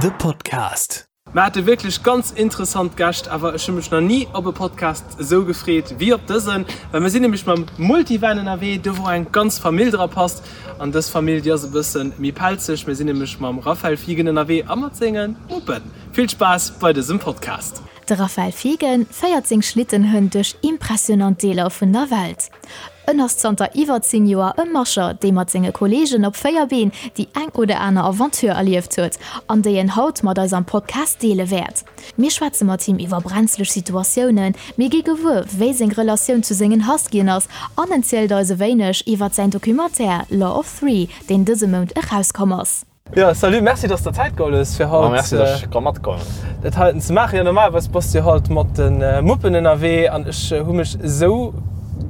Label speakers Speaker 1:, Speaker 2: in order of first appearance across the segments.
Speaker 1: The Podcast.
Speaker 2: Mer hate wierklech ganz interessant Gäscht, awer ech hu mech nach ni op e Podcast esou gefreet wéi op dësen, well mer sinn nämlech mam Multivan ënnerwee, do wou eng ganz Famill dra passt. An dës Famill, déi ass e bësse méi pelzeg. Mir sinn nämlech mam Raphael Fiegen ënnerwee a mat senge Muppen. Vill Spaass bei dësem Podcast!
Speaker 3: De Raphael Fiegen féiert seng Schlittenhënn duerch impressionant Deeler vun der Welt. En ass zanter iwwer 10 Joer e Musher, dee mat senge Kolleegen op 4 Been déi eng oder aner Aventure erlieft huet an déi en haut mat eis am Podcast deele wäert. Mir schwätze mat him iwwer brenzleg Situatiounen, mir gi gewuer, wéi seng Relatioun zu sengen Huskyen ass an en zielt eis e wéineg iwwer säin Documentaire Law of Three, deen dëse Mount erauskomm ass.
Speaker 2: Jo, salut, merci dass de der Zäit geholl hues fir haut.
Speaker 4: Merci dass ech ka matkommen.
Speaker 2: Dat heiten ze maachen. Jo, normalerweis bass de jo halt mat de Muppen ënnerwee an ech hu mech esou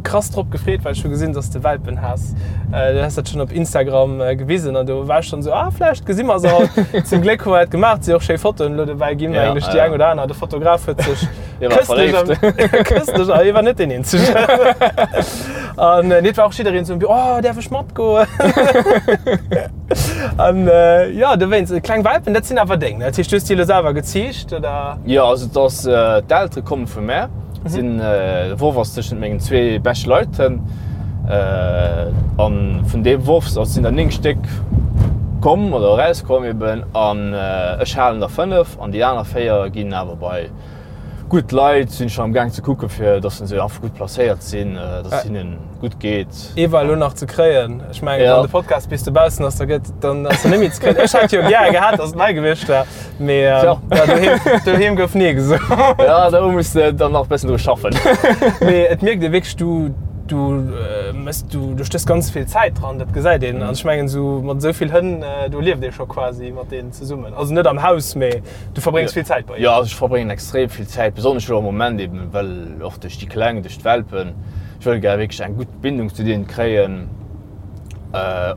Speaker 2: krass drop gefreet, well ech hu gesinn, dass de Welpen has. Du has dat schonn op Instagram gewisen an do war ech schonn esou, ah vläicht gesi mer se haut. Zum Gléck hu mer dat gemaach, et si och schéi Fotoen elo dobäi ginn, mengen ech, déi eng oder aner. De Fotograf huet sech
Speaker 4: këstlech,
Speaker 2: këstlech, a hie war net deen eenzegen. An nee, et war och jiddereen esou, oh däerf ech matgoen? An jo, dowéinst, kleng Welpen, dat sinn awer deng, ne? Dat heescht, du hues déi elo selwer geziicht, oder?
Speaker 4: Jo, also et ass, d'Eltere komme vu mär, sinn, de Worf ass tëschent mengen zwee beschte Leit hënn. An vun deem Worf, also sinn der 9 Stéck komm oder erauskomm eben, an ech halen der 5 an déi aner 4 ginn awer bei gutt Leit. Sinn schonn am gaang ze kucke fir dass se einfach gutt placéiert sinn, dass et hinnen gutt geet.
Speaker 2: Ee war elo nach ze kréien. Ech mengen, wann de Podcast bis dobaussen ass, da gëtt, dann ass en net méi ze kréien. Ech hätt jo gär gehat, dass et nei gewiescht wär, mee ja, doheem, doheem gouf nee gesot.
Speaker 4: Ja, do muss de dann nach e bëssen dru schaffen.
Speaker 2: Mee et mierkt ee wierklech, du, du mëss, du, du stéchs ganz vill Zäit dran, dat gesäit een. An ech mengen, esou mat esou vill Hënn, do lieft ee scho quasi mat deenen zesummen. Also net am Haus, mee Du verbréngs vill Zäit
Speaker 4: bei hinnen? Jo, also ech verbréngen extrem vill Zäit, besonnesch elo am Moment eben, well och duerch déi Kleng, duerch d'Welpen. Ech wëll gär wierklech eng gutt Bindung zu deenen kréien,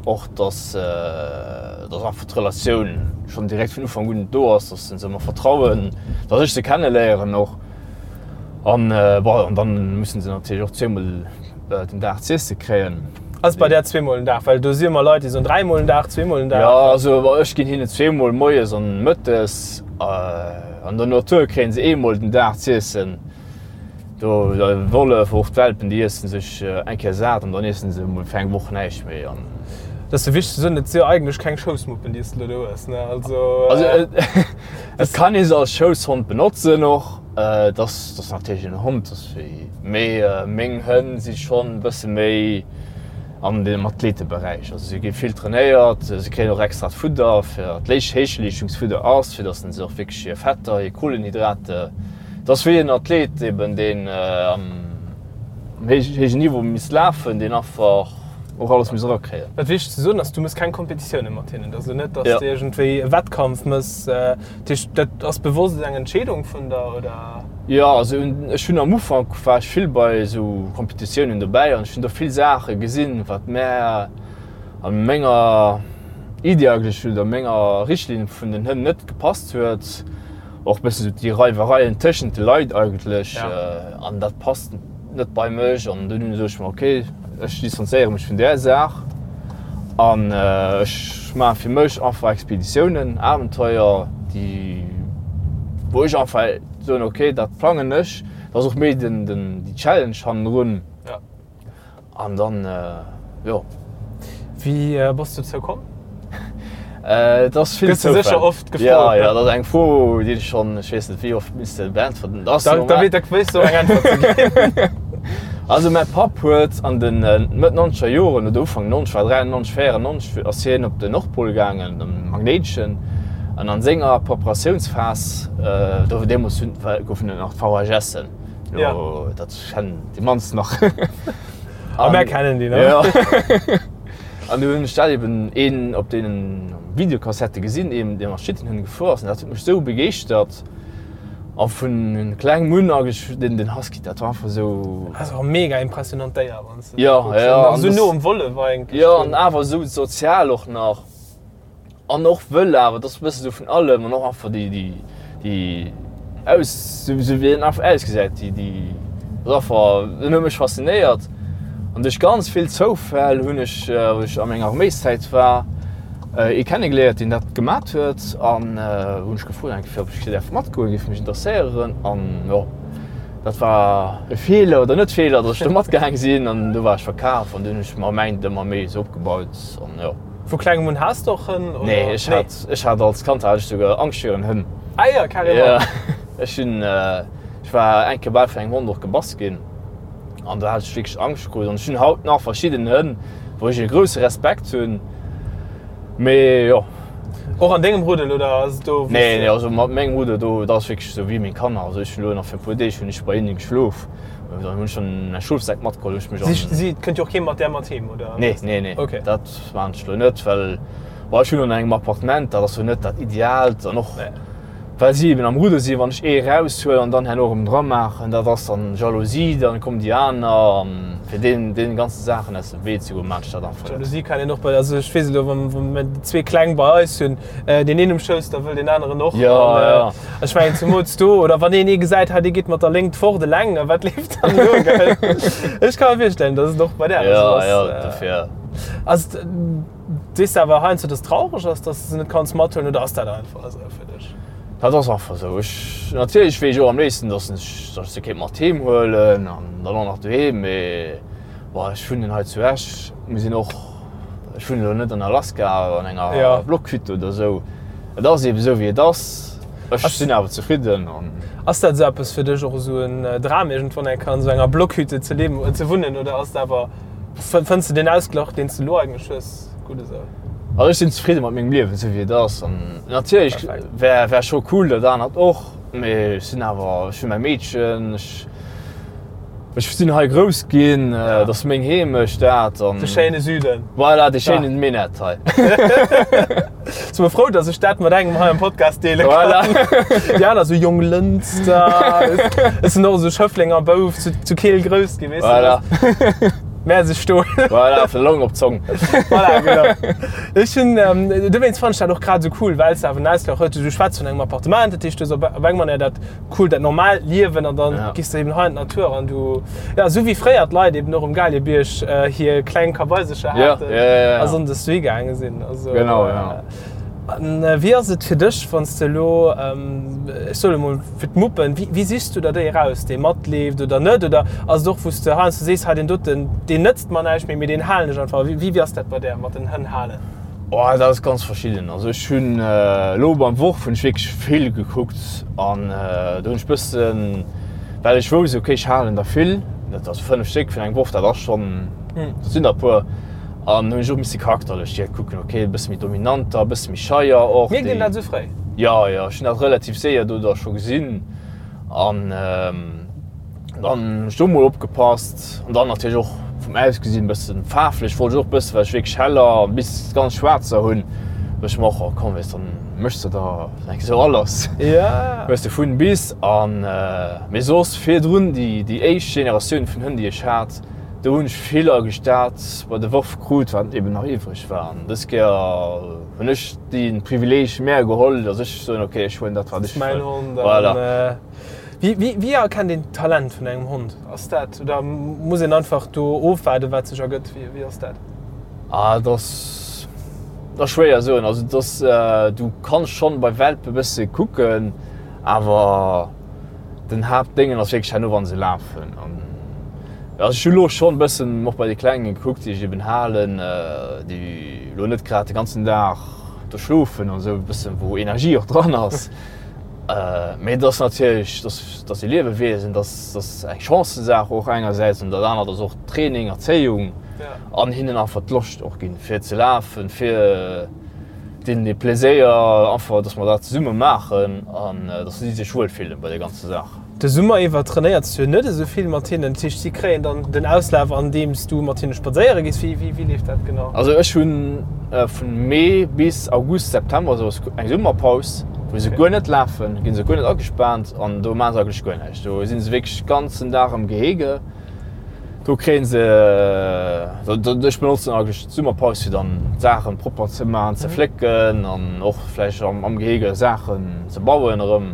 Speaker 4: och dass dass einfach d'Relatioun schonn direkt vun Ufank un do ass, dass se mer vertrauen, dass ech se kenneléieren och. An bon, an dann mussen se natierlech och zweemol den Dag z'iesse kréien.
Speaker 2: Ass bei där zweemol den Dag? Well do si ëmmer Leit, déi soen dräimol den Dag, zweemol den Dag.
Speaker 4: Jo, also ech ginn hinnen zweemol moies an mëttes. An der Natur kréien se eemol den Dag z'iessen. Do de Wollef, och d'Welpen, déi iessen sech eng Kéier sat an dann iessen se emol fir eng Woch näischt méi. An
Speaker 2: Dat ass jo wichteg ze soen, et si jo eigentlech keng Schoussmuppen, déi s de elo do hues, ne?
Speaker 4: Also. Also et kann ee se als Schousshond benotzen och. Et ass natierlech en Hond, mee meng Hënn si schonn e bësse méi an dem Athleteberäich. Also si gi vill trainéiert, si kréien och extrat Fudder, fir Héichleeschtungsfudder ass, fir datt se och wierklech hir Fetter, hir Kohlenhydrate, et ass wéi en Athlet eben, deen am héijen Niveau misst lafen, deen einfach och alles muss erakréien.
Speaker 2: Wat wichteg ze soen ass, du mëss keng Kompetitioune mat hinnen. Et ass elo net, datt s de iergendwéi e Wettkampf mëss. Dat heescht, dat ass bewosst eng Entscheedung vun der, oder?
Speaker 4: Jo, also ech hunn am Ufank war ech vill bei esou Kompetitiounen dobäi an ech hunn do vill Saache gesinn, wat mär a menger Iddi eigentlech oder menger Richtlinn vun den Hënn net gepasst huet. Och e bëssen esou déi Reiwereien tëschent de Leit eigentlech an dat passt net bei mech an dunn sot ech mer, ok, ech distanzéiere mech vun där Saach an ech maache fir mech einfach Expeditiounen, Abenteuer, déi wou ech einfach soen, ok, dat plangen ech, dat ass och méi den déi Challenge hannendrun. An dann, jo.
Speaker 2: Wéi bass du dozou komm?
Speaker 4: Et ass vill
Speaker 2: Gëss du sécher oft gefrot.
Speaker 4: Ja, ja, dat ass eng Fro, déi ech schonn, ech weess net wéi oft misste beäntwerten.
Speaker 2: Da wéis du och eng Äntwert ze ginn.
Speaker 4: Also mäi Papp huet an de Mëtt nonzeger Joren oder Ufank 90, war 93, 94, ass hien op den Nordpol gaangen, am Magnéiteschen. An an senger Preparatiounsphas, do deemools goufen et nach d'VHSen, Jo, dat kennen déi mannst nach.
Speaker 2: A mär kennen déi nach.
Speaker 4: Ja. An du hunn ech dat eben een op deenen Videokassette gesinn, een dee mat Schlittenhënn gefuer ass. An dat huet mech esou begeeschtert. A vun klengem un eigentlech den, den Husky, dat war einfach esou.
Speaker 2: Dat ass och e mega impressionant Déier, wann s de
Speaker 4: dat kucks. Ja, ja.
Speaker 2: An esou no um Wollef eigentlech.
Speaker 4: Jo, an awer esou sozial och nach. An och wëll awer, et ass e bësse sou vun allem an och einfach déi, déi, déi aus, sou sou wéi en einfach ausgesäit, déi, déi ass einfach, en huet mech faszinéiert. An duerch ganz vill Zoufäll hunn ech, wou ech a menger Arméiszäit war. Ee kennegeléiert, deen dat gemat huet an hunn ech gefrot eng Kéier, ob ech däerf matgoen, géif mech interesséieren an jo, dat war e Feeler oder net Feeler, datt ech do matgaang sinn an du war ech verkaf an dunn hunn ech mer mäint ëmmer méi esou opgebaut an jo.
Speaker 2: Vu klengem un haas de och Hënn
Speaker 4: oder? Nee, ech hat, ech hat als Kand hat ech souguer Angscht virun Hënn.
Speaker 2: Ah jo, carrément.
Speaker 4: Jo, ech hunn, ech war eng Kéier bal vun engem Hond och gebass ginn. An do hat ech wierklech Angscht krut. An ech hunn haut nach verschidden Hënn, wou ech e grousse Respekt hunn. Mee jo.
Speaker 2: Och an dengem Ruddel oder ass et do
Speaker 4: wou s Nee, nee, also mat mengem Ruddel do, dat ass wierklech esou wéi meng Kanner. Also ech hunn elo nach fir e puer Deeg hunn ech bei hinnen geschlof. Dann hunn ech schonn mäi Schlofsak matgeholl, hunn ech mech
Speaker 2: an. Si, si, et kënnt jo och kee mat där mat heem, oder?
Speaker 4: Nee, nee, nee.
Speaker 2: Okay.
Speaker 4: Dat maachen ech elo net, well, bon, ech hunn an engem Appartement, dat ass jo net dat Ideaalt an och.
Speaker 2: Nee.
Speaker 4: Well si eben am Rudder sinn, wann ech ee eraushuelen an dann herno erëm dramaachen, dat ass dann Jalousie, dann kommen déi aner an fir deen deenen ganzen Saachen aus dem Wee ze goen, maan ech dat einfach net.
Speaker 2: Jalousie kann een och bei, also ech weess elo wann wann mir déi zwee Kleng bei eis hunn, deen een um Schouss, da wëll deen aneren och.
Speaker 4: Jo, jo.
Speaker 2: Ech mengen zemools do, oder wann een ee gesäit, hei dee geet mat der Léngt fort eleng, a wat leeft dann do, gell? Ech ka mer virstellen, dass et och bei där esou
Speaker 4: ass. Jo, jo, dofir.
Speaker 2: Ass et. Sees de awer heiansdo, dass et traureg ass, dass de se net kanns mathuelen, oder ass dat einfach esou fir dech?
Speaker 4: Dat ass einfach esou. Ech, natierlech wier ech och am léifsten, dass ech, dass ech se kéint mat heem huelen an dann och nach doheem, mee bon, ech wunnen hei zu Esch, mir sinn och, ech wunnen elo net an Alaska an enger
Speaker 2: Ja.
Speaker 4: Blockhütte oder esou. Et ass eeben esou wéi et ass. Ech sinn awer zefridden an.
Speaker 2: Ass dat esou eppes fir dech, och esou en Dram iergendwann eng Kéier an esou enger Blockhütte ze liewen, ze wunnen, oder ass et awer Fënns de deen Ausglach, deen s de elo eigentlech hues, gutt esou?
Speaker 4: Also ech sinn zefridde mat mengem Liewen, esou wéi et ass. An natierlech wär wär scho cool dat anert och, mee ech sinn awer, ech hunn mäi Meedchen, ech ech sinn hei grouss ginn, et ass meng Heemecht dat
Speaker 2: an. De schéine Süden.
Speaker 4: Voilà, de schéinen Minett hei.
Speaker 2: Si mer frou, dass ech dat mat engem hei am Podcast deele kann.
Speaker 4: Voilà.
Speaker 2: Déi aner sou Jonglënster. Ech sinn och esou Schëfflenger Bouf, zu, zu Keel grouss ginn, weess de.
Speaker 4: Voilà.
Speaker 2: Mäerseg Stol.
Speaker 4: Voilà, vun der Long op d'Zong.
Speaker 2: Voilà, genau. Ech hunn, ähm, dowéinst fannen ech dat och grad esou cool, well s de awer en Ausgleich hues. Du schwätz vun engem Appartement, dat heescht, du hues op, op eng Manier dat cool, dat normaalt Liewen an dann
Speaker 4: Ja.
Speaker 2: gehst du eben hei an d'Natur an du, ja, esou wéi fréier d'Leit eben och um Galiebierg äh, hir kleng Kabaisercher
Speaker 4: Ja,
Speaker 2: haten
Speaker 4: ja, ja, ja.
Speaker 2: a sonndes dohi gaange sinn. Also,
Speaker 4: Genau, ja.
Speaker 2: An äh, wéi ass et fir dech, wann s de elo, ähm, ech soe lo mol fir d'Muppen, wéi, wéi sichs du der déi eraus, dee matleeft oder net? Oder ass et och, wou s de heiansdo sees, hei deen doten, deen nëtzt mer näischt méi, mee deen halen ech einfach. Wéi, wéi ass dat bei där mat den Hënn halen?
Speaker 4: Oh, dat ass ganz verschidden. Also ech hunn elo beim Worf hunn ech wierklech vill gekuckt an do hunn ech bëssen, well ech wousst, okay ech halen der vill, dat ass 5 Stéck vun engem Worf, dat ass schonn, dat sinn der e puer an hunn ech och misse charakterlech direkt kucken, okay e bësse méi dominanter, e bësse méi scheier och.
Speaker 2: Mierkt een dat esou fréi?
Speaker 4: Jo, jo, ech hunn dat relativ séier do da scho gesinn an. Dann hunn ech do mol opgepasst an dann natierlech och vum Ausgesinn bëssen faarflech wollt ech och bëssen, well ech wierklech heller bis ganz schwaarzer hunn, du ech mer och, oh komm weess dann méchs de der eng esou alles, hues de vun bis an. Mee soss virdrun déi déi éischt Generatioun vun Hënn déi ech hat, do hunn ech vill eigentlech dat bei de Worf krut wat eben nach iwwreg war an dës Kéier hunn ech dee Privileeg mär geholl, datt ech soen, ok ech huelen dat wat ech
Speaker 2: wëll.
Speaker 4: Voilà.
Speaker 2: Wéi erkennt een d'Talent vun engem Hond? Ass dat, oder muss een einfach do ofwaarden, wat sech ergëtt? Wéi ass dat?
Speaker 4: Ah, dat ass, dat ass schwéier soen. Also et ass, du kanns schonn bei Welpe bësse kucken, awer den Haaptdéngen ass wierklech herno, wa se lafen. An also ech hu lo schonn bëssen och bei de Klengen gekuckt, déi ech eben halen, déi lo net grad de ganzen Dag do schlofen an esou, e bëssen wou Energie och dran ass. Mee et ass natierlech, dat ass e Liewewiesen, dat ass eng Chancësaach och engersäits an dat anert ass och Training, Erzéiung an hinnen einfach d'Loscht och ginn, fir ze lafen, fir deenen dee Pleséier einfach, datt mer dat zesumme maachen an datt si sech wuel fillen bei där ganzer Saach.
Speaker 2: De Summer iwwer trainéiers du jo net esou vill mat hinnen, dat heescht si kréien dann den Auslaf andeems du mat hinne spadséiere gees. Wéi wéi leeft dat genau?
Speaker 4: Also ech hunn vun Mee bis August, September esou eng Summerpaus, wou se guer net lafen, ginn se guer net agespaant an do maache se eigentlech guer näischt. Do si se wierklech ganzen Dag am Gehege. Do kréie se, ech benotzen eigentlech d'Summerpaus fir dann d'Saachen propper ze maachen, ze flécken an och vläicht am Gehege Saachen ze bauen erëm.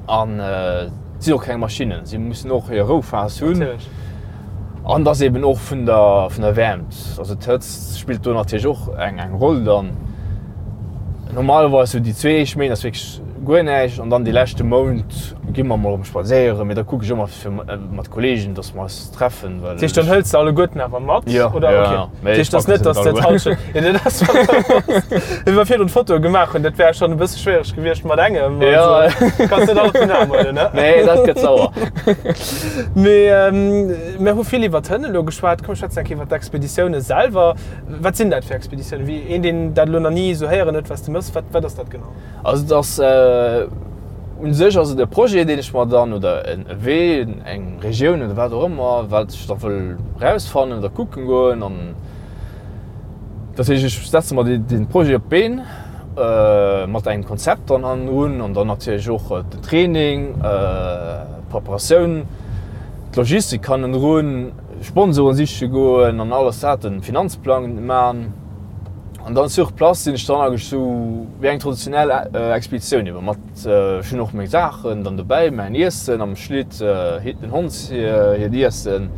Speaker 4: An et sinn och keng Maschinnen, si mussen och hir Rouphas hunn. An et ass eben och vun der, vun der Wäermt, also d'Hëtzt spillt do natierlech och eng, eng Roll dann. Normalerweis sou déi zwee éischt Méint ass wierklech guer näischt an dann dee leschte Mount gi mer mol erëm spadséieren, mee da kucke ech ëmmer fir mat Kolleegen, dass mer eis treffen,
Speaker 2: well. Dat heescht, dann hëls de alleguerten awer mat?
Speaker 4: Jo,
Speaker 2: oder?
Speaker 4: jo,
Speaker 2: Okay.
Speaker 4: jo.
Speaker 2: Dat
Speaker 4: Mee ech
Speaker 2: heescht, et ass
Speaker 4: packe
Speaker 2: net,
Speaker 4: se
Speaker 2: dass
Speaker 4: net
Speaker 2: de
Speaker 4: alleguer.
Speaker 2: d'Hallschent. Jo, dat ass Wéi mer virdrun d'Fotoe gemaach hunn, dat wär schonn e bësse schwiereg gewiescht mat engem.
Speaker 4: Jo.
Speaker 2: Also, kanns net all op den Aarm huelen, ne?
Speaker 4: Nee, dat gëtt sauer.
Speaker 2: Mee mir hu vill iwwer d'Hënn elo geschwat. Komm, schwätzen eng Kéier iwwer d'Expeditioune selwer. Wat sinn dat fir Expeditiounen? Wéi een, deen dat elo nach ni esou héieren huet, wat s de méchs, wat, wat ass dat genau?
Speaker 4: Also et ass, u sech ass et e Projet, deen ech mer dann, oder e Wee, eng Regioun oder wat och ëmmer, wat ech da wëll erausfannen oder kucken goen. An dat heescht, ech setze mer dee Projet op d'Been mat engem Konzept dann hannendrun an dann natierlech och den Training, d'Preparatioun, d'Logistik hannendrun. Sponsoren siche goen an alles dat, den Finanzplang man an dann sur place sinn ech dann eigentlech sou wéi eng traditionell Expeditioun eben mat, ech hunn och meng Saachen dann dobäi, mäin Iessen am Schlitt, den Hond hiert Iessen.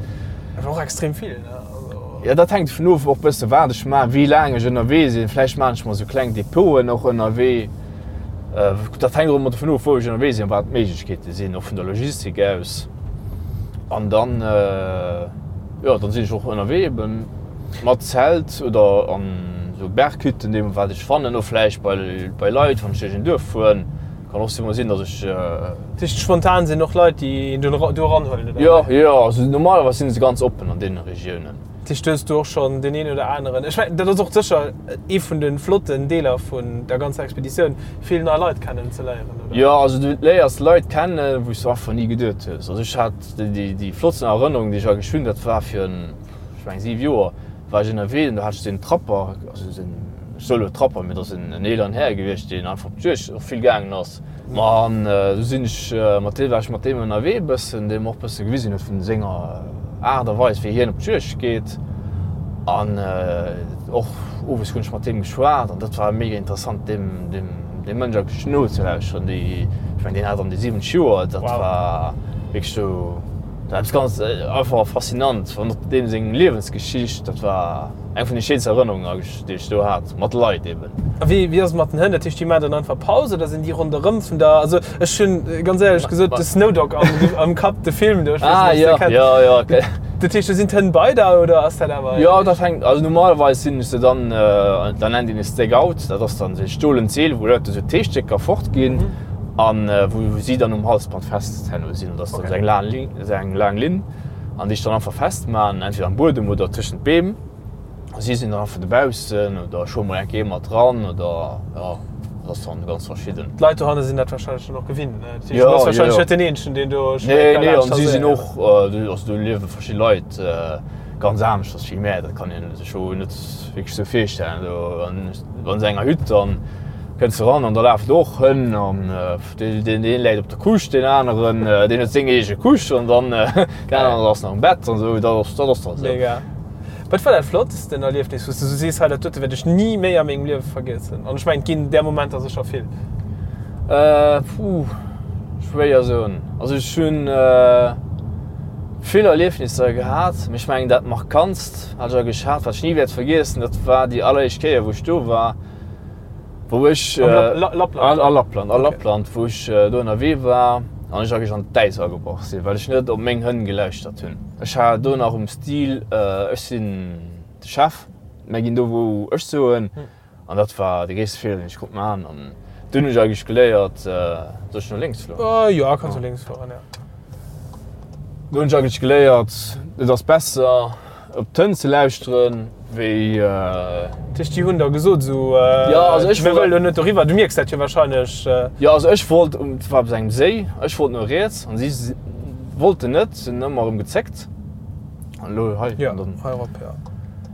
Speaker 2: Awer och extrem vill, ne? Also.
Speaker 4: Jo, dat hänkt dovun of och bësse wat ech man, wéi laang ech ënnerwee sinn. Vläicht man ech mer sou kleng Depoten och ënnerwee. Dat hänkt och ëmmer dovun of wou ech ënnerwee sinn an wat d'Méiglechkeete sinn, och vun der Logistik aus. An dann, jo, dann sinn ech och ënnerwee eben mat Zelt oder an esou Berghütten, deem wat ech fannen, oder vläicht bei, bei Leit, wann ech duerch en Duerf fueren. Kann och emol sinn, datt ech.
Speaker 2: Dat heescht, spontan sinn och Leit, déi een do do eranhuelen,
Speaker 4: oder? Jo, jo, also normalerweis si se ganz oppen an deene Regiounen.
Speaker 2: Dat heescht, do hues du och schonn deen een oder aneren, ech mengen, dat ass och sécher ee vun de flotten Deeler vun der ganzer Expeditioun, vill nei Leit kennen ze léieren,
Speaker 4: oder? Jo, also du léiers Leit kennen, wou s du einfach ni geduet hues. Also ech hat déi flottsten Erënnerung, déi ech eigentlech hunn, dat war virun, ech mengen, 7 Joer war ech ënnerwee an do hat ech den Trapper, also den, ech soe lo Trapper, mee dat ass en eeleren Här gewiescht, deen einfach op d'Juegd och vill gaangen ass. Ma an du sinn ech mat deem, war ech mat deem ënnerwee e bëssen, dee mer och e bësse gewisen huet vun senger Aart a Weis, wéi hien op d'Juegd geet. An och owes hunn ech mat deem geschwat an dat war mega interessant, deem, deem, deem Mënsch eigentlech nozelauschteren. Déi, ech mengen, deen hat an déi 70 Joer, dat war wierklech sou, dat war eppes ganz einfach faszinant, an och deem seng Liewensgeschicht, dat war eng vun de schéinsten Erënnerungen eigentlech. déi ech do hat, mat Leit eben.
Speaker 2: A wéi, wéi ass et mat den Hënn? Dat heescht, déi maachen dann einfach Paus oder sinn déi ronderëm vun der, also ech hunn ganz éierlech gesot de Snowdog am, am Kapp, de Film do, ech weess
Speaker 4: Ah,
Speaker 2: net, ob s de
Speaker 4: jo,
Speaker 2: kenns.
Speaker 4: jo, jo, okay.
Speaker 2: Dat heescht, do sinn d'Hënn bei der oder ass dat awer?
Speaker 4: Jo, dat hänkt, also normalerweis sinn ech se dann, da nennt een e Stakeout, dat ass dann esou e stolent Seel, wou Leit esou Teestécker fortginn an wou si dann um Halsband fest herno sinn. Dat ass dann esou eng laang Linn, esou eng laang Linn an déi ech dann einfach festman, entweder am Buedem oder tëschent d'Beem. Si sinn dann einfach dobaussen oder ech huele mol eng Kéier mat dran oder jo, dat ass dann ganz verschidden.
Speaker 2: D'Leit dohanne sinn dat warscheinlech dann och gewinnt, ne? Dat heescht,
Speaker 4: Jo,
Speaker 2: du bass
Speaker 4: jo,
Speaker 2: warscheinlech
Speaker 4: jo.
Speaker 2: net den Eenzegen, deen do
Speaker 4: Nee,
Speaker 2: schwéier
Speaker 4: nee,
Speaker 2: laanscht
Speaker 4: an si sinn
Speaker 2: trasséiert.
Speaker 4: och, do, also do liewe verschidde Leit ganz aneschters wéi mär, dat kann een sech jo net wierklech sou virstellen. Do an an esou enger Hütt, dann kënns de ran an da lafen do och Hënn an deen, deen een läit op der Couche, deen aneren, deen huet seng eege Couche an dann deen aneren ass nach am Bett an esou, dat ass, dat ass dann esou.
Speaker 2: Mega. Wat war dat flottsten Erliefnis, wou s de sou sees, hei dat dote wäert ech ni méi a mengem Liewe vergiessen? An ech mengen, et ginn där Momenter sécher vill.
Speaker 4: Puh, schwéier soen. Also ech hunn vill Erliefnisser gehat, mee ech mengen dat markantst, wat ech eigentlech hat, wat ech ni wäert vergiessen, dat war déi alleréischt Kéier wou ech do war. Wou ech
Speaker 2: Am
Speaker 4: a Lappland, a Lappland, wou ech do ënnerwee war an ech eigentlech an d'Äis agebrach sinn, well ech net op meng Hënn gelauschtert hunn. Ech war do nach um Stil, ech sinn de Chef, mär ginn do wou ech soen. An dat war de gréisste Feeler, deen ech konnt maachen. An dunn hunn ech eigentlech geléiert, soll ech no lénks
Speaker 2: fueren? Jo, kanns no lénks fueren, jo.
Speaker 4: Do hunn ech eigentlech geléiert, et ass besser, Op d'Hënn ze lauschteren, wéi.
Speaker 2: Dat heescht, déi hunn der gesot esou,
Speaker 4: Jo, also ech
Speaker 2: mir
Speaker 4: wollt.
Speaker 2: wëllen elo net doriwwer. Du mierks dat jo warscheinlech.
Speaker 4: Jo, also ech wollt, et war op engem Séi, ech wollt no riets an si wollten net, si hunn ëmmer erëm gezéckt. An elo hei.
Speaker 2: Jo, hei erop, jo.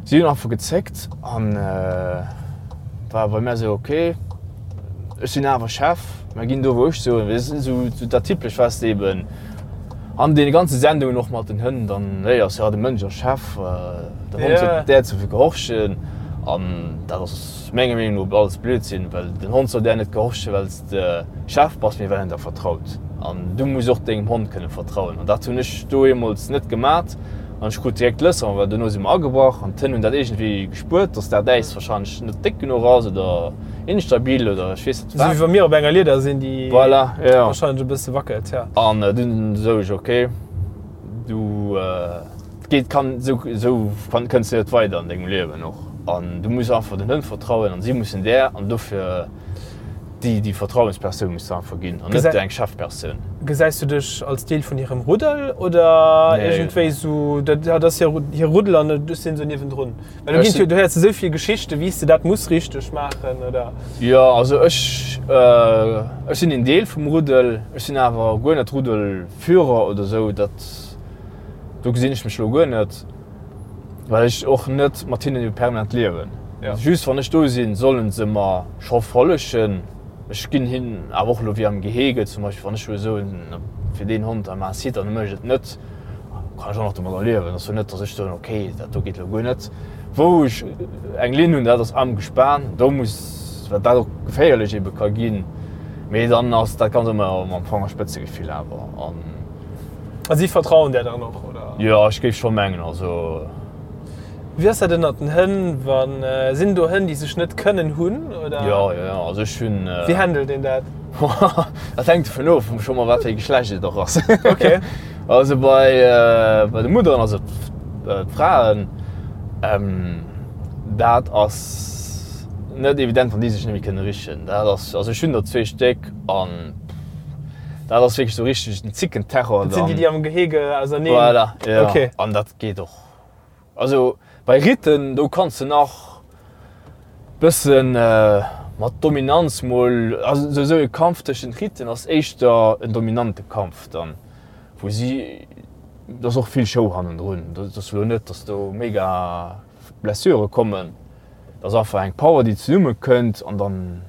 Speaker 4: Si hunn einfach gezéckt an war bei mär esou, ok, ech sinn awer Chef, mer ginn do wou ech soen. Esou dat Typescht, wat s de eben. An deene ganze Sendungen och mat den Hënn, dann léiers jo, de Mënsch ass Chef, den Hond huet där ze gehorchen. An dat ass menger Meenung no alles Blödsinn, well den Hond soll där net gehorchen, well s de Chef bass, mee well en der vertraut. An du muss och dengem Hond kënne vertrauen. An dat hunn ech do eemools net gemat. An ech krut direkt d'Lësser, well dono si mer agebrach an d'Hënn hunn dat iergendwéi gespuert, dass dat Äis warscheinlech net déck genuch ass oder instabil oder ech weess net
Speaker 2: wat. Esou wéi wa mir op enger Lieder sinn, déi
Speaker 4: voilà, ja.
Speaker 2: warscheinlech e bësse wackelt,
Speaker 4: ja. An dunn sou ech, ok, du, et geet, kann, esou, esou kënns de net weider an dengem Liewen och. An du muss einfach den Hënn vertrauen an si mussen där an dofir. Déi, déi Vertrauenspersoun muss se einfach ginn an net eng Chefpersoun.
Speaker 2: Gesäis du dech als Deel vun hirem Ruddel oder iergendwéi sou, dat ass hir Ruddel an ech sinn sou niewendrun? Well do ginn jo, du héiers esou vill Geschichten, wéi s de dat muss richteg maachen oder.
Speaker 4: Jo, also ech, ech sinn een Deel vum Ruddel, ech sinn awer guer net Ruddelführer oder sou, dat, do gesinn ech mech elo guer net. Well ech och net mat hinnen permanent liewen. Just wann ech do sinn, sollen se mer scho follegen. Ech ginn hinnen awer och elo wéi am Gehege zum Beispill, wann ech elo soen, fir deen Hond da maach Sit an e mécht et net, kann ech och nach domadder liewen. Et ass jo net, datt ech soen, okay, dat do geet elo guer net. Wou ech eng Linn hunn, dat ass am Gespan, do muss, well dat och geféierlech ebe ka ginn, mee dann ass dat ganz ëmmer mam Fangerspëtzegefill awer. An.
Speaker 2: A si vertrauen där dann och, oder?
Speaker 4: Jo, ech géif scho mengen, also.
Speaker 2: Wéi ass dat ënnert den Hënn, wa sinn do Hënn, déi sech net kënnen hunn, oder?
Speaker 4: Jo, jo, jo, also ech hunn.
Speaker 2: Wéi handelt een dat?
Speaker 4: Dat hänkt dovun of, scho mol wat fir ee Geschlecht et och ass.
Speaker 2: Ok.
Speaker 4: Also bei, bei de Mutteren, also d'Fraen, dat ass net evident, wann déi sech net méi kënne richen. Dat ass, also ech hunn der zwee Stéck an. Dat ass wierklech sou richteg den Zickenterror.
Speaker 2: Dat sinn déi, déi am Gehege auserneen.
Speaker 4: Voilà, ja.
Speaker 2: Okay.
Speaker 4: An dat geet och. Also bei Ritten, do kanns de nach bëssen mat Dominanz mol, also sou e Kampf tëschent Ritten ass éischter en dominante Kampf dann, wou si, do ass och vill Show hannendrun. Dat ass elo net, datt do mega Blessure kommen. Dat ass einfach eng Power, déi zesumme kënnt an dann.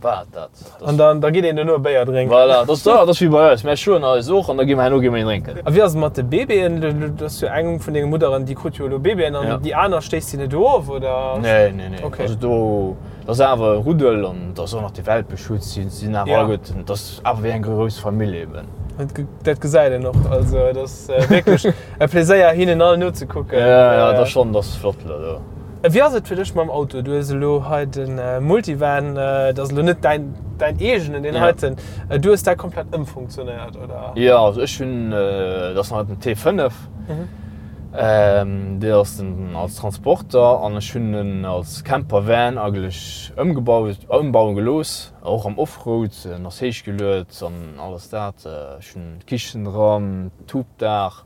Speaker 4: War dat.
Speaker 2: An dann da geet een duerno e Béier drénken.
Speaker 4: Voilà, dat ass, dat ass wéi bei eis. Mär schloen eis och an da gi mer herno gi mer een drénken.
Speaker 2: A wéi ass et mat de Baby'en? Do ass jo eng vun denge Mudderen, déi krut jo elo Baby'en an déi aner stéisst si net of, oder?
Speaker 4: Nee, nee, nee.
Speaker 2: Okay.
Speaker 4: Also do, dat ass awer e Ruddel an et ass och nach de Welpeschutz, si sinn awer
Speaker 2: Ja.
Speaker 4: alleguerten, et ass awer wéi eng grouss Famill eben.
Speaker 2: Dat, dat gesäit een och. Also et ass wierklech e Pleséier hinnen all nozekucken.
Speaker 4: Ja, ja, dat ass schonn, dat ass flott elo do.
Speaker 2: Wéi ass et fir dech mam Auto? Du hues elo hei de Multivan, dat ass elo net däin, däin eegenen, deen heiten. Du hues dat komplett ëmfunktionéiert, oder?
Speaker 4: Jo, also ech hunn, dat ass nach den T5, dee ass den als Transporter an ech hunn en als Campervan eigentlech ëmgebaut, ëmbaue gelooss, och am Offroad. En ass héichgeluet an alles dat. Ech hunn d'Kichen dran, d'Hubdaach.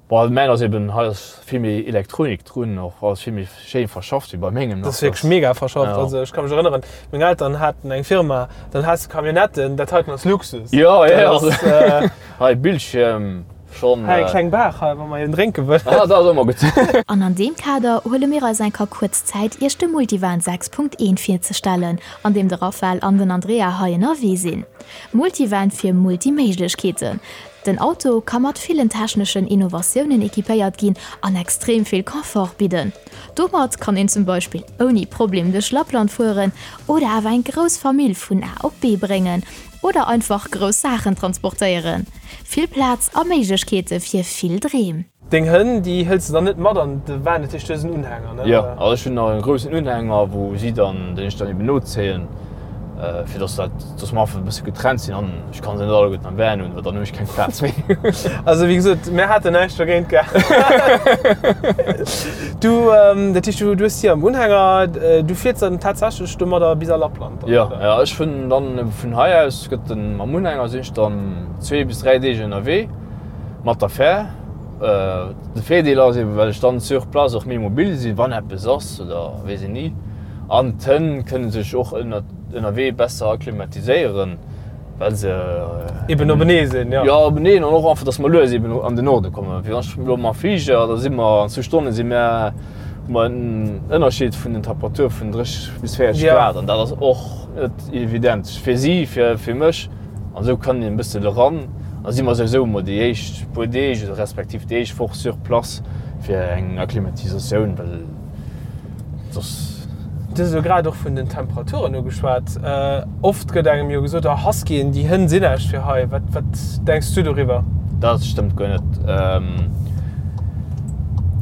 Speaker 4: Bon, mäin ass eben, hei ass vill méi Elektronik drun, och alles vill méi schéin verschafft wéi bei mengem
Speaker 2: nach. Dat ass wierklech mega verschafft. Ja. Also ech ka mech erënneren, meng Eltern haten eng Firma, dann has de Camionnetten, dat heiten ass Luxus.
Speaker 4: Jo, jo, jo. Ass, äh, Hei Bildschierm
Speaker 2: schonn. Hei eng kleng Bar hei, wa mer een drénke
Speaker 4: wëllen. Ah, dat ass ëmmer gutt.
Speaker 3: An an deem Kader huele mir eis eng Ka kuerz Zäit, Iech de Multivan 6.1 virzestellen, an deem de Raphael an den Andrea hei ënnerwee sinn. Multivan fir Multiméiglechkeeten. Den Auto ka mat villen techneschen Innovatiounen equipéiert ginn an extrem vill Confort bidden. Domat kann een zum Beispill ouni Problem duerch Lappland fueren oder awer eng grouss Famill vun A op B bréngen oder einfach grouss Saachen transportéieren. Vill Plaz a Méiglechkeete fir vill Dreem.
Speaker 2: Deng Hënn, déi hëls de dann net mat an de Van, dat heescht du hues en Unhänger, ne?
Speaker 4: Jo, also ech hunn nach e groussen Unhänger, wou si dann, deen ech dann eben nozéien, fir dass dat, dass mer einfach e bësse getrennt sinn an ech kann se net alleguerten am Van hunn, well dann hunn ech keng Plaz méi.
Speaker 2: Also wéi gesot, mär haten näischt dogéint gehat. Du, dat heescht du hues si am Unhänger, du fiers dann tatsächlech domadder bis a Lappland
Speaker 4: dann, oder? Jo, jo, ech hunn dann vun hei aus gëtt den, mam Unhänger sinn ech dann zwee bis dräi Deeg ënnerwee. Mat der Fähr. De Virdeel ass eben, well ech dann sur place och méi mobil sinn, wann eppes ass oder weess een ni. An d'Hënn kënne sech och ënnerwee besser akklimatiséieren, well se
Speaker 2: Eben openee sinn,
Speaker 4: jo. Jo, openeen an och einfach, dass mer lues eben an den Norde kommen. Wéi wann ech elo mam Fliger, da si mer an zwou Stonne si mer, hu mer en Ënnerscheed vun den Temperature vun 30 bis 40 Grad an dat ass och net evident fir si, fir mech. An esou kann een e bëssen eran. Da si mer souwisou emol déi éischt puer Deeg oder respektiv déi éischt Woch sur place fir eng Akklimatisatioun, well soss.
Speaker 2: Du hues elo grad och vun den Temperaturen ugeschwat. Oft gëtt engem jo gesot, oh Huskyen, déi Hënn sinn näischt fir hei. Wat, wat denks du doriwwer?
Speaker 4: Dat stëmmt guer net.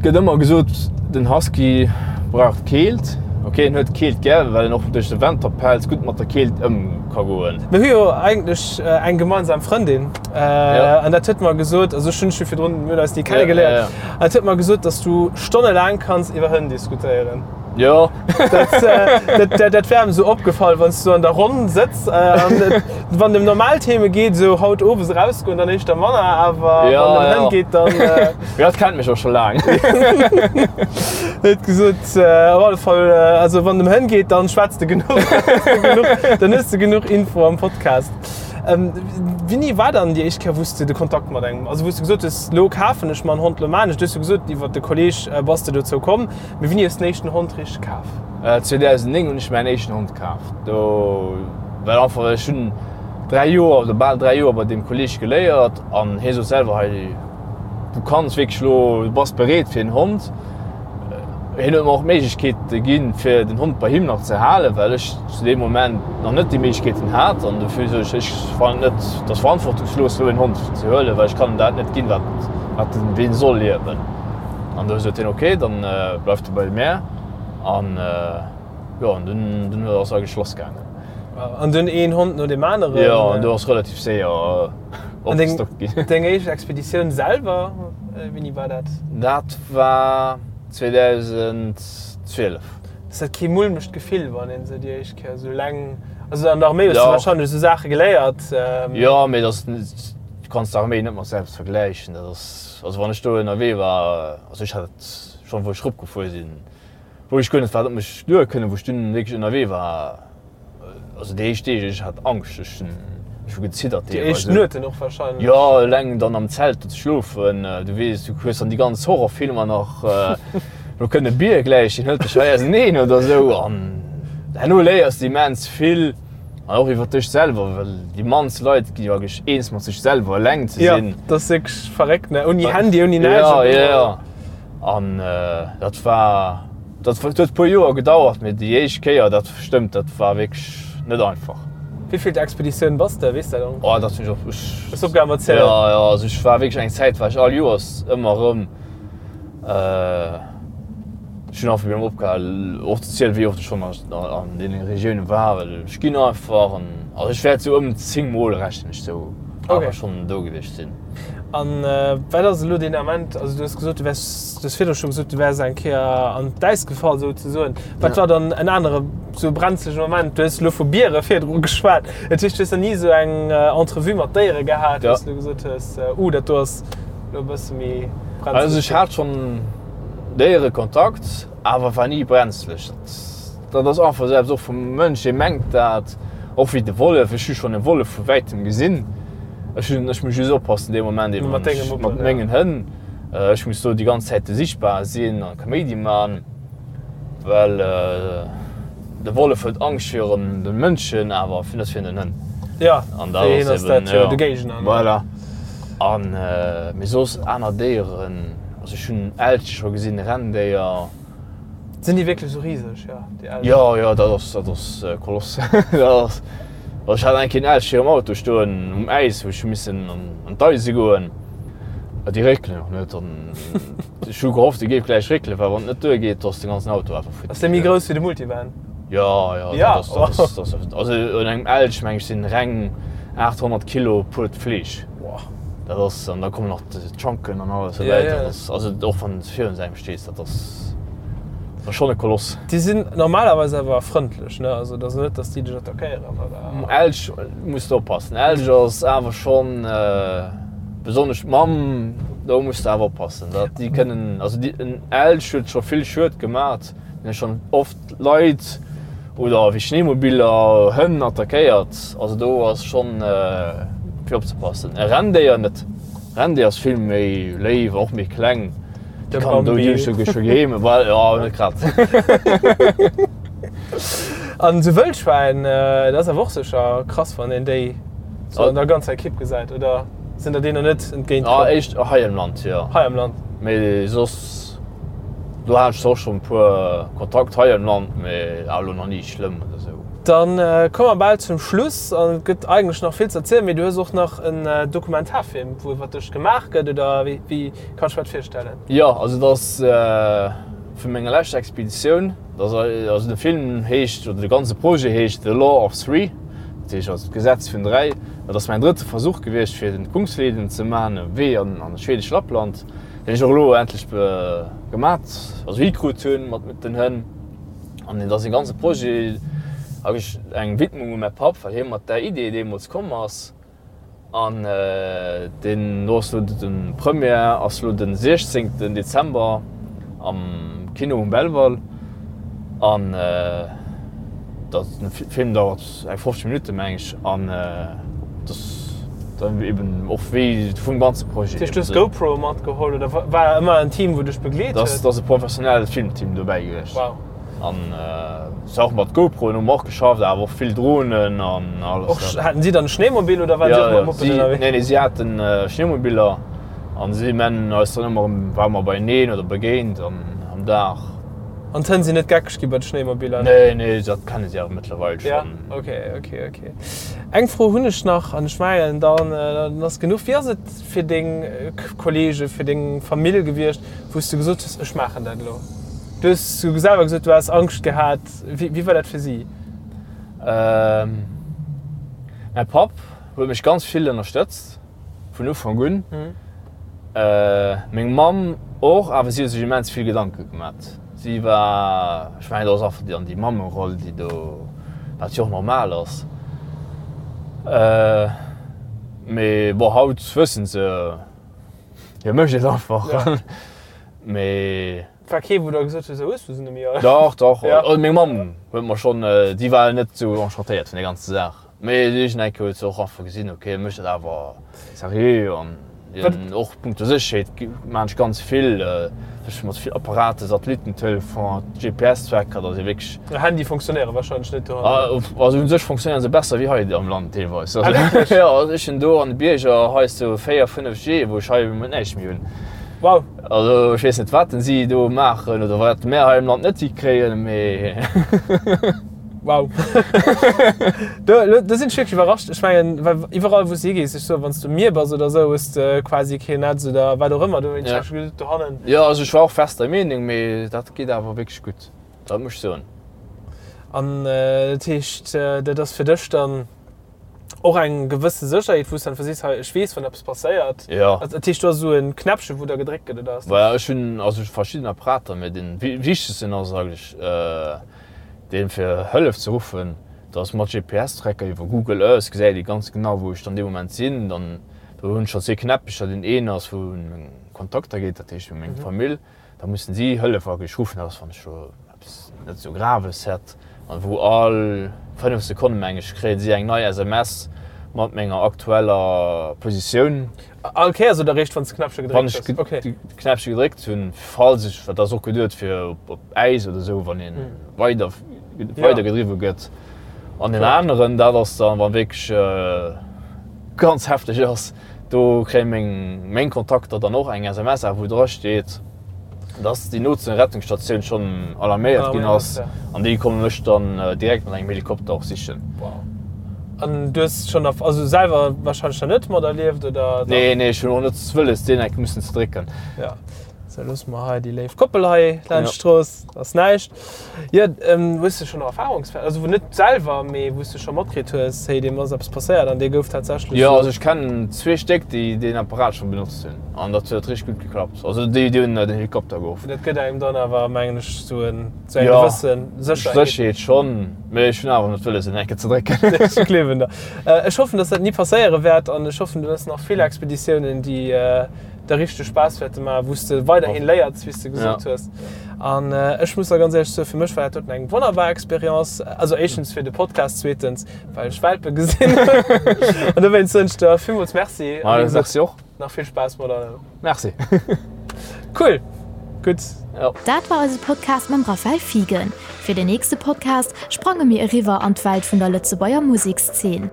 Speaker 4: gëtt ëmmer gesot, den Husky brauch d'Keelt. Ok, en huet d'Keelt gär, well en och duerch de Wanterpelz gutt mat der Keelt ëm ka goen.
Speaker 2: Mir hu jo eigentlech eng gemeinsam Frëndin an dat huet mer gesot, also ech hunn dech jo virdrun, mir hunn eis ni kennegeléiert, an dat huet mer gesot, dass du stonnelaang kanns iwwer Hënn diskutéieren.
Speaker 4: Jo.
Speaker 2: Dat, dat wär em esou opgefall, wann s du an der Ronn sëtz an wann et ëm normal Theme geet, esou haut owes erausgoen, dann éischter manner, awer
Speaker 4: ja,
Speaker 2: wann et ëm
Speaker 4: ja.
Speaker 2: Hënn geet, dann.
Speaker 4: Jo, dat kennt mech och scho laang.
Speaker 2: Huet gesot, op alle Fall, also wann et ëm Hënn geet, dann schwätz de genuch, dann hues de genuch Info am Podcast. Wéini war dann déi éischt Kéier, wou s de de Kontakt mat engem, also wou s de gesot hues, lo kafen ech mer en Hond, lo maan ech et? Du hues jo gesot, iwwer de Kolleg bass de dozou komm. Mee wéini hues de den éischten Hond richteg kaf?
Speaker 4: 2009 hunn ech mäin éischten Hond kaf. Do well einfach ech hunn 3 Joer oder bal 3 Joer bei deem Kolleeg geléiert an hie sot selwer hei du kanns wierklech elo, du bass bereet fir en Hond. Hien huet mer och d'Méiglechkeet ginn fir den Hond bei him nach ze halen, well ech zu deem Moment nach net déi Méiglechkeeten hat an dofir sot ech, ech fannen et net, et ass verantwortungslos elo en Hond ze huelen, well ech kann em dat net ginn wat wat en wéi en soll liewen. An du sot hien, ok, dann bleift de bei mär. An jo, an dunn, dunn ass eigentlech lass gaangen.
Speaker 2: An dunn een Hond no deem aneren?
Speaker 4: Jo, an do ass relativ séier opgestockt ginn.
Speaker 2: An deng éischt Expeditioun selwer, wéini war dat?
Speaker 4: Dat war 2012.
Speaker 2: Ass dat kee mulmegt Gefill, wann een esou déi éischt Kéier esou eleng, also an der Arméi hues du warscheinlech esou Saache geléiert?
Speaker 4: Jo, mee dat ass, du kanns d'Arméi net mat selbst vergläichen. Dat ass. Also wann ech do ënnerwee war, also ech hat et schonn wou ech eropgefuer sinn, wou ech guer net wat op mech duer kënnen, wou ech dunn wierklech ënnerwee war, also déi éischt Deeg, ech hat Angscht, ech hunn ech hu geziddert
Speaker 2: Déi éischt
Speaker 4: deelweis.
Speaker 2: Nueten och wahrscheinlech.
Speaker 4: Jo, eleng dann am Zelt do ze schlofen, du weess, du hues dann déi ganz Horrorfilmer nach, lo kënnt e Bier gläich, deen hëlt dech hei auseneen oder esou an herno léiers de immens vill. An och iwwer dech selwer, well déi mannst Leit gi jo eigentlech eens mat sech selwer eleng ze
Speaker 2: sinn. Ja, dat ass wierklech verréckt, ne? Ouni Handy, ouni näischt.
Speaker 4: Ja, ja, ja. An dat war, dat huet e puer Joer gedauert, mee déi éischt Kéier, dat stëmmt, dat war wierklech net einfach.
Speaker 2: Wéivill Expeditioun bass de, weess dat och?
Speaker 4: Oh, dat hunn ech och, ech.
Speaker 2: Hues opgehal mat zielen?
Speaker 4: Ja, ja, also ech war wierklech eng Zäit war ech all Joers ëmmer erëm. Ech hunn einfach erëm opgehal och ze zielen, wéi oft ech schonn an deene Regioune war, well ech ginn einfach an also ech wäert sou ëm 10 mol rechnen ech sou awer schonn do gewiescht sinn.
Speaker 2: An wat ass elo deen Ament, also du hues gesot, du wäers, du hues virdru scho gesot, du wäers eng Kéier an d'Äis gefall souzesoen. Wat war dann en anere sou brenzlege Moment? Du hues elo vu Biere virdru geschwat, dat heescht du hues nach ni sou eng Entrevue mat Déiere gehat, wou s du gesot hues, uh dat do ass elo e bësse méi brenzleg.
Speaker 4: Also ech hat schonn Déierekontakt, awer war ni brenzlech. Dat ass einfach esou eppes och vum Mënsch, dee mengt dat, och wéi de Wollef. Ech hu schonn e Wollef vu wäitem gesinn. Ech hunn, ech muss just oppassen dee Moment eben
Speaker 2: Mat denge Muppen,
Speaker 4: mat mengen Hënn. Ech muss do déi ganz Zäite sichtbar sinn a Kaméidi man, well de Wollef huet Angscht virun de Mënschen, awer net virun den Hënn.
Speaker 2: Ja,
Speaker 4: An dat
Speaker 2: fir hien
Speaker 4: ass
Speaker 2: ass dat
Speaker 4: eben,
Speaker 2: jo
Speaker 4: ja,
Speaker 2: de Géigner, ne?
Speaker 4: Voilà. An mee soss aner Déieren, also ech hunn Elche scho gesinn, Renndéier.
Speaker 2: Sinn déi wierklech esou riseg, jo, déi Elchen?
Speaker 4: Jo, jo, dat ass, dat ass Koloss. Dat ass, also ech hat eng Kéier en Elch virum Auto stoen um Äis, wou ech hu missen an d'Eise goen. Déi réckelen och net an ech hu gehofft, e géif gläich réckelen, well wann et net duergeet, da ass de ganzen Auto einfach futti.
Speaker 2: Ass dee méi grouss wéi de Multivan?
Speaker 4: Jo, jo, dat ass, dat ass, dat ass, also un engem Elch, meng ech, sinn reng 800 Kilo puert Fleesch. Dat ass, an da kommen nach d'Schanken an alles dobäi.
Speaker 2: Ja, ja.
Speaker 4: Dat ass, also och wann s virun engem stees, dat ass, dat ass schonn e Koloss.
Speaker 2: Déi sinn normalerweis awer frëndlech, ne? Also et ass net, datt déi dech attackéieren, oder?
Speaker 4: Elch muss de oppassen. Elch ass awer schonn, besonnesch d'Mamm, do muss de awer oppassen, dat déi kënnen, also déi, en Elch huet scho vill Schued gemat. Mir hu schonn oft Leit oder wéi Schneemobiller Hënn attackéiert. Also do ass schonn fir opzepassen. E Renndéier net. Renndéier ass vill méi léif, och méi kleng.
Speaker 2: De
Speaker 4: Déi kann do
Speaker 2: Bambi.
Speaker 4: déi scho scho geheem, well jo net grad.
Speaker 2: An esou Wëllschwäin, dat ass awer och sécher krass, wann een déi sou an der ganzer Ekipp gesäit, oder sinn der deenen net entgéint
Speaker 4: Ah,
Speaker 2: komm?
Speaker 4: éischt hei am Land, jo.
Speaker 2: Hei am Land.
Speaker 4: Mee soss. Do hat ech zwar och schon e puer Kontakt hei am Land, mee awer elo nach ni schlëmm oder sou.
Speaker 2: Dann komme mer bal zum Schluss an et gëtt eigentlech nach vill ze erzielen, mee du hues och nach en Dokumentarfilm, wou iwwer dech gemaach gëtt, oder wéi wéi kann ech mer dat virstellen?
Speaker 4: Jo, also dat ass vu menger leschter Expeditioun. Dat ass also de Film heescht, oder de ganze Projet heescht The Law of Three, dat heescht also d'Gesetz vun 3. Dat ass mäin drëtte Versuch gewiescht fir den Kungsleden ze maachen, e Wee an an schwedesch Lappland, deen ech och elo endlech gemat, also hikrut hunn mat den Hënn. An et ass e ganze Projet, eigentlech eng Widmung u mäi Papp, well hie mat där Idee deemools komm ass. An deen do ass elo de Première ass elo de 16 Dezember am Kino um Belval. An dat de Film dauert eng 50 Minutten, meng ech. An dat ass dann eben och wéi vum ganze Projet.
Speaker 2: Dat heescht, du hues GoPro matgeholl oder war ëmmer en Team, wou dech begleet
Speaker 4: huet? Dat ass e professionellt Filmteam dobäi gewiescht.
Speaker 2: Wow.
Speaker 4: An se och mat GoProen hu mer och geschafft, awer och vill Dronen an alles.
Speaker 2: Och haten si dann e Schneemobil oder waren si och mat Muppen ënnerwee?
Speaker 4: Nee, nee, si haten Schneemobiller an si men eis dann ëmmer erëm, ware mer beieneen oder begéint an am Dag.
Speaker 2: An d'Hënn sinn net geckeg gi bei de Schnéimobiller?
Speaker 4: Nee, nee, dat kenne si awer mëttlerweil
Speaker 2: schonn. Ja, ok, ok, ok. Eng Fro hunn ech nach an ech mengen dann ass genuch. Wéi ass et fir deng Kollege, fir deng Famill gewiescht, wou s du gesot hues, ech maachen dat elo? Du hues selwer gesot, du has Angscht gehat. Wéi war dat fir si?
Speaker 4: Mäi Papp huet mech ganz vill ënnerstëtzt vun Ufank un. Meng Mamm och, awer si huet sech immens vill Gedanke gemat. Si war, ech mengen, dat ass einfach dann déi Mammeroll, déi do, wat jo och normal ass. Mee bon, haut wëssen se, hie mécht et einfach. Mee.
Speaker 2: War kee wou der gesot huet, hues du se net méi
Speaker 4: all? Dach, dach. Ja. Also meng Mamm huet mer schonn, déi war net esou enchantéiert vun der ganzer Saach. Mee iergendeng Kéier huet se och einfach gesinn, ok, e mécht dat awer seriö an hien och punkto Sécherheet maan ech ganz vill, ech mat vill Apparaten, Satellittentelefon, GPS-Tracker, datt ee wierklech.
Speaker 2: Handye funktionéiere warscheinlech net dohannen.
Speaker 4: Also u sech funktionéieren se besser wéi hei am Land deelweis. Ah wierklech? Jo, also ech hunn do an de Bierger hei sou 4, 5 G, wou ech hei näischt méi hunn.
Speaker 2: Wow.
Speaker 4: Also ech weess net wat den si do maachen oder wat mär hei am Land net hikréien, mee.
Speaker 2: Wow. Do, do sinn ech wierklech iwwerrascht. Ech mengen, well iwwerall wou s de higees, ech soen, wann s du um Mier bass oder esou, hues de quasi keen Netz oder wat och ëmmer. Do hunn ech gesot, dohannen.
Speaker 4: Jo, also ech war och fest der Meenung, mee dat geet awer wierklech gutt, dat muss ech soen.
Speaker 2: An dat heescht, dat ass fir dech dann och eng gewësse Sécherheet, wou s de einfach sees, hei, ech weess, wann eppes passéiert.
Speaker 4: Jo.
Speaker 2: Dat heescht, do ass esou e Knäppchen, wou da gedréckt gëtt, oder ass dat?
Speaker 4: Voilà, ech hunn also verschidden Apparater, mä dee wichtegsten ass eigentlech deen, fir Hëllef ze ruffen. Dat ass mat GPS-Tracker iwwer Google Earth gesäit ee ganz genau, wou ech dann dee Moment sinn. Dann do hunn ech schonn zwee Knäppecher, deen een ass, wou un meng Kontakter geet, dat heescht u meng Famill. Da mussen si Hëllef wierklech ruffen, dat ass wann ech elo eppes net esou Graves hätt, an wou all 5 Sekonne meng ech kréien si eng nei SMS mat menger aktueller Positioun.
Speaker 2: All Kéiers oder eréischt wann s de Knäppche
Speaker 4: gedréckt hues? Wann ech de Knäppche gedréckt hunn, falls ech, dat ass och geduet fir op Äis oder esou, wann ee weider weidergedriwwe gëtt. An deen aneren, dat ass dann, wa wierklech ganz hefteg ass, Do kréie meng meng Kontakter dann och eng SMS, awer wou dra steet, dass déi nootste Rettungsstatioun schonn alarméiert ginn ass an déi komme mech dann direkt mat engem Helikopter och sichen.
Speaker 2: Wow. An du hues schonn erf also selwer warscheinlech nach net materlieft, oder
Speaker 4: dach? Nee, nee, ech hunn och net wëlles deen enk mussen ze drécken.
Speaker 2: Ja. Sou, loosse mer hei déi léif Koppel hei laanscht d'Strooss, ass näischt. Jo, hues de schonn Erfahrungswäerter, also wou net selwer, mee wou s de scho matkritt hues, hey, deem ass eppes passéiert an dee gouf tatsächlech
Speaker 4: Jo, also ech kennen zwee Stéck, déi deen Apparat schonn benotzt hunn an dat huet richteg gutt geklappt. Also déi, déi hunn den Helikopter geruff.
Speaker 2: Dat gëtt engem dann awer, mengen ech, sou en, sou eng gewësse
Speaker 4: Sécherheet. Sécherheet schonn, mee ech hunn awer net wëlles, en enke ze drécken.
Speaker 2: Ech gleewen der. Ech hoffen, dass dat ni passéiere wäert an ech hoffen, du hues nach vill Expeditiounen, déi der richteg Spaass wäerte maachen, wou s de weiderhin léiers, wéi s de gesot hues. An ech muss der ganz éierlech soen, fir mech war dat doten eng wonnerbar Experience. Also éischtens fir de Podcast, zweetens well ech Welpe gesinn hunn. An dowéinst soen ech der villmools Merci.
Speaker 4: A wéi gesot, Merci och.
Speaker 2: Nach vill Spaass mat allem.
Speaker 4: Merci.
Speaker 2: Cool. Gutt.
Speaker 4: Jo.
Speaker 3: Dat war eise Podcast mam Raphael Fiegen. Fir den nächste Podcast sprange mir eriwwer an d'Welt vun der Lëtzebuerger Musekszeen.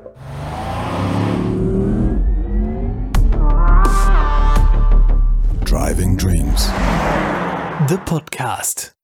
Speaker 1: Driving Dreams, de Podcast.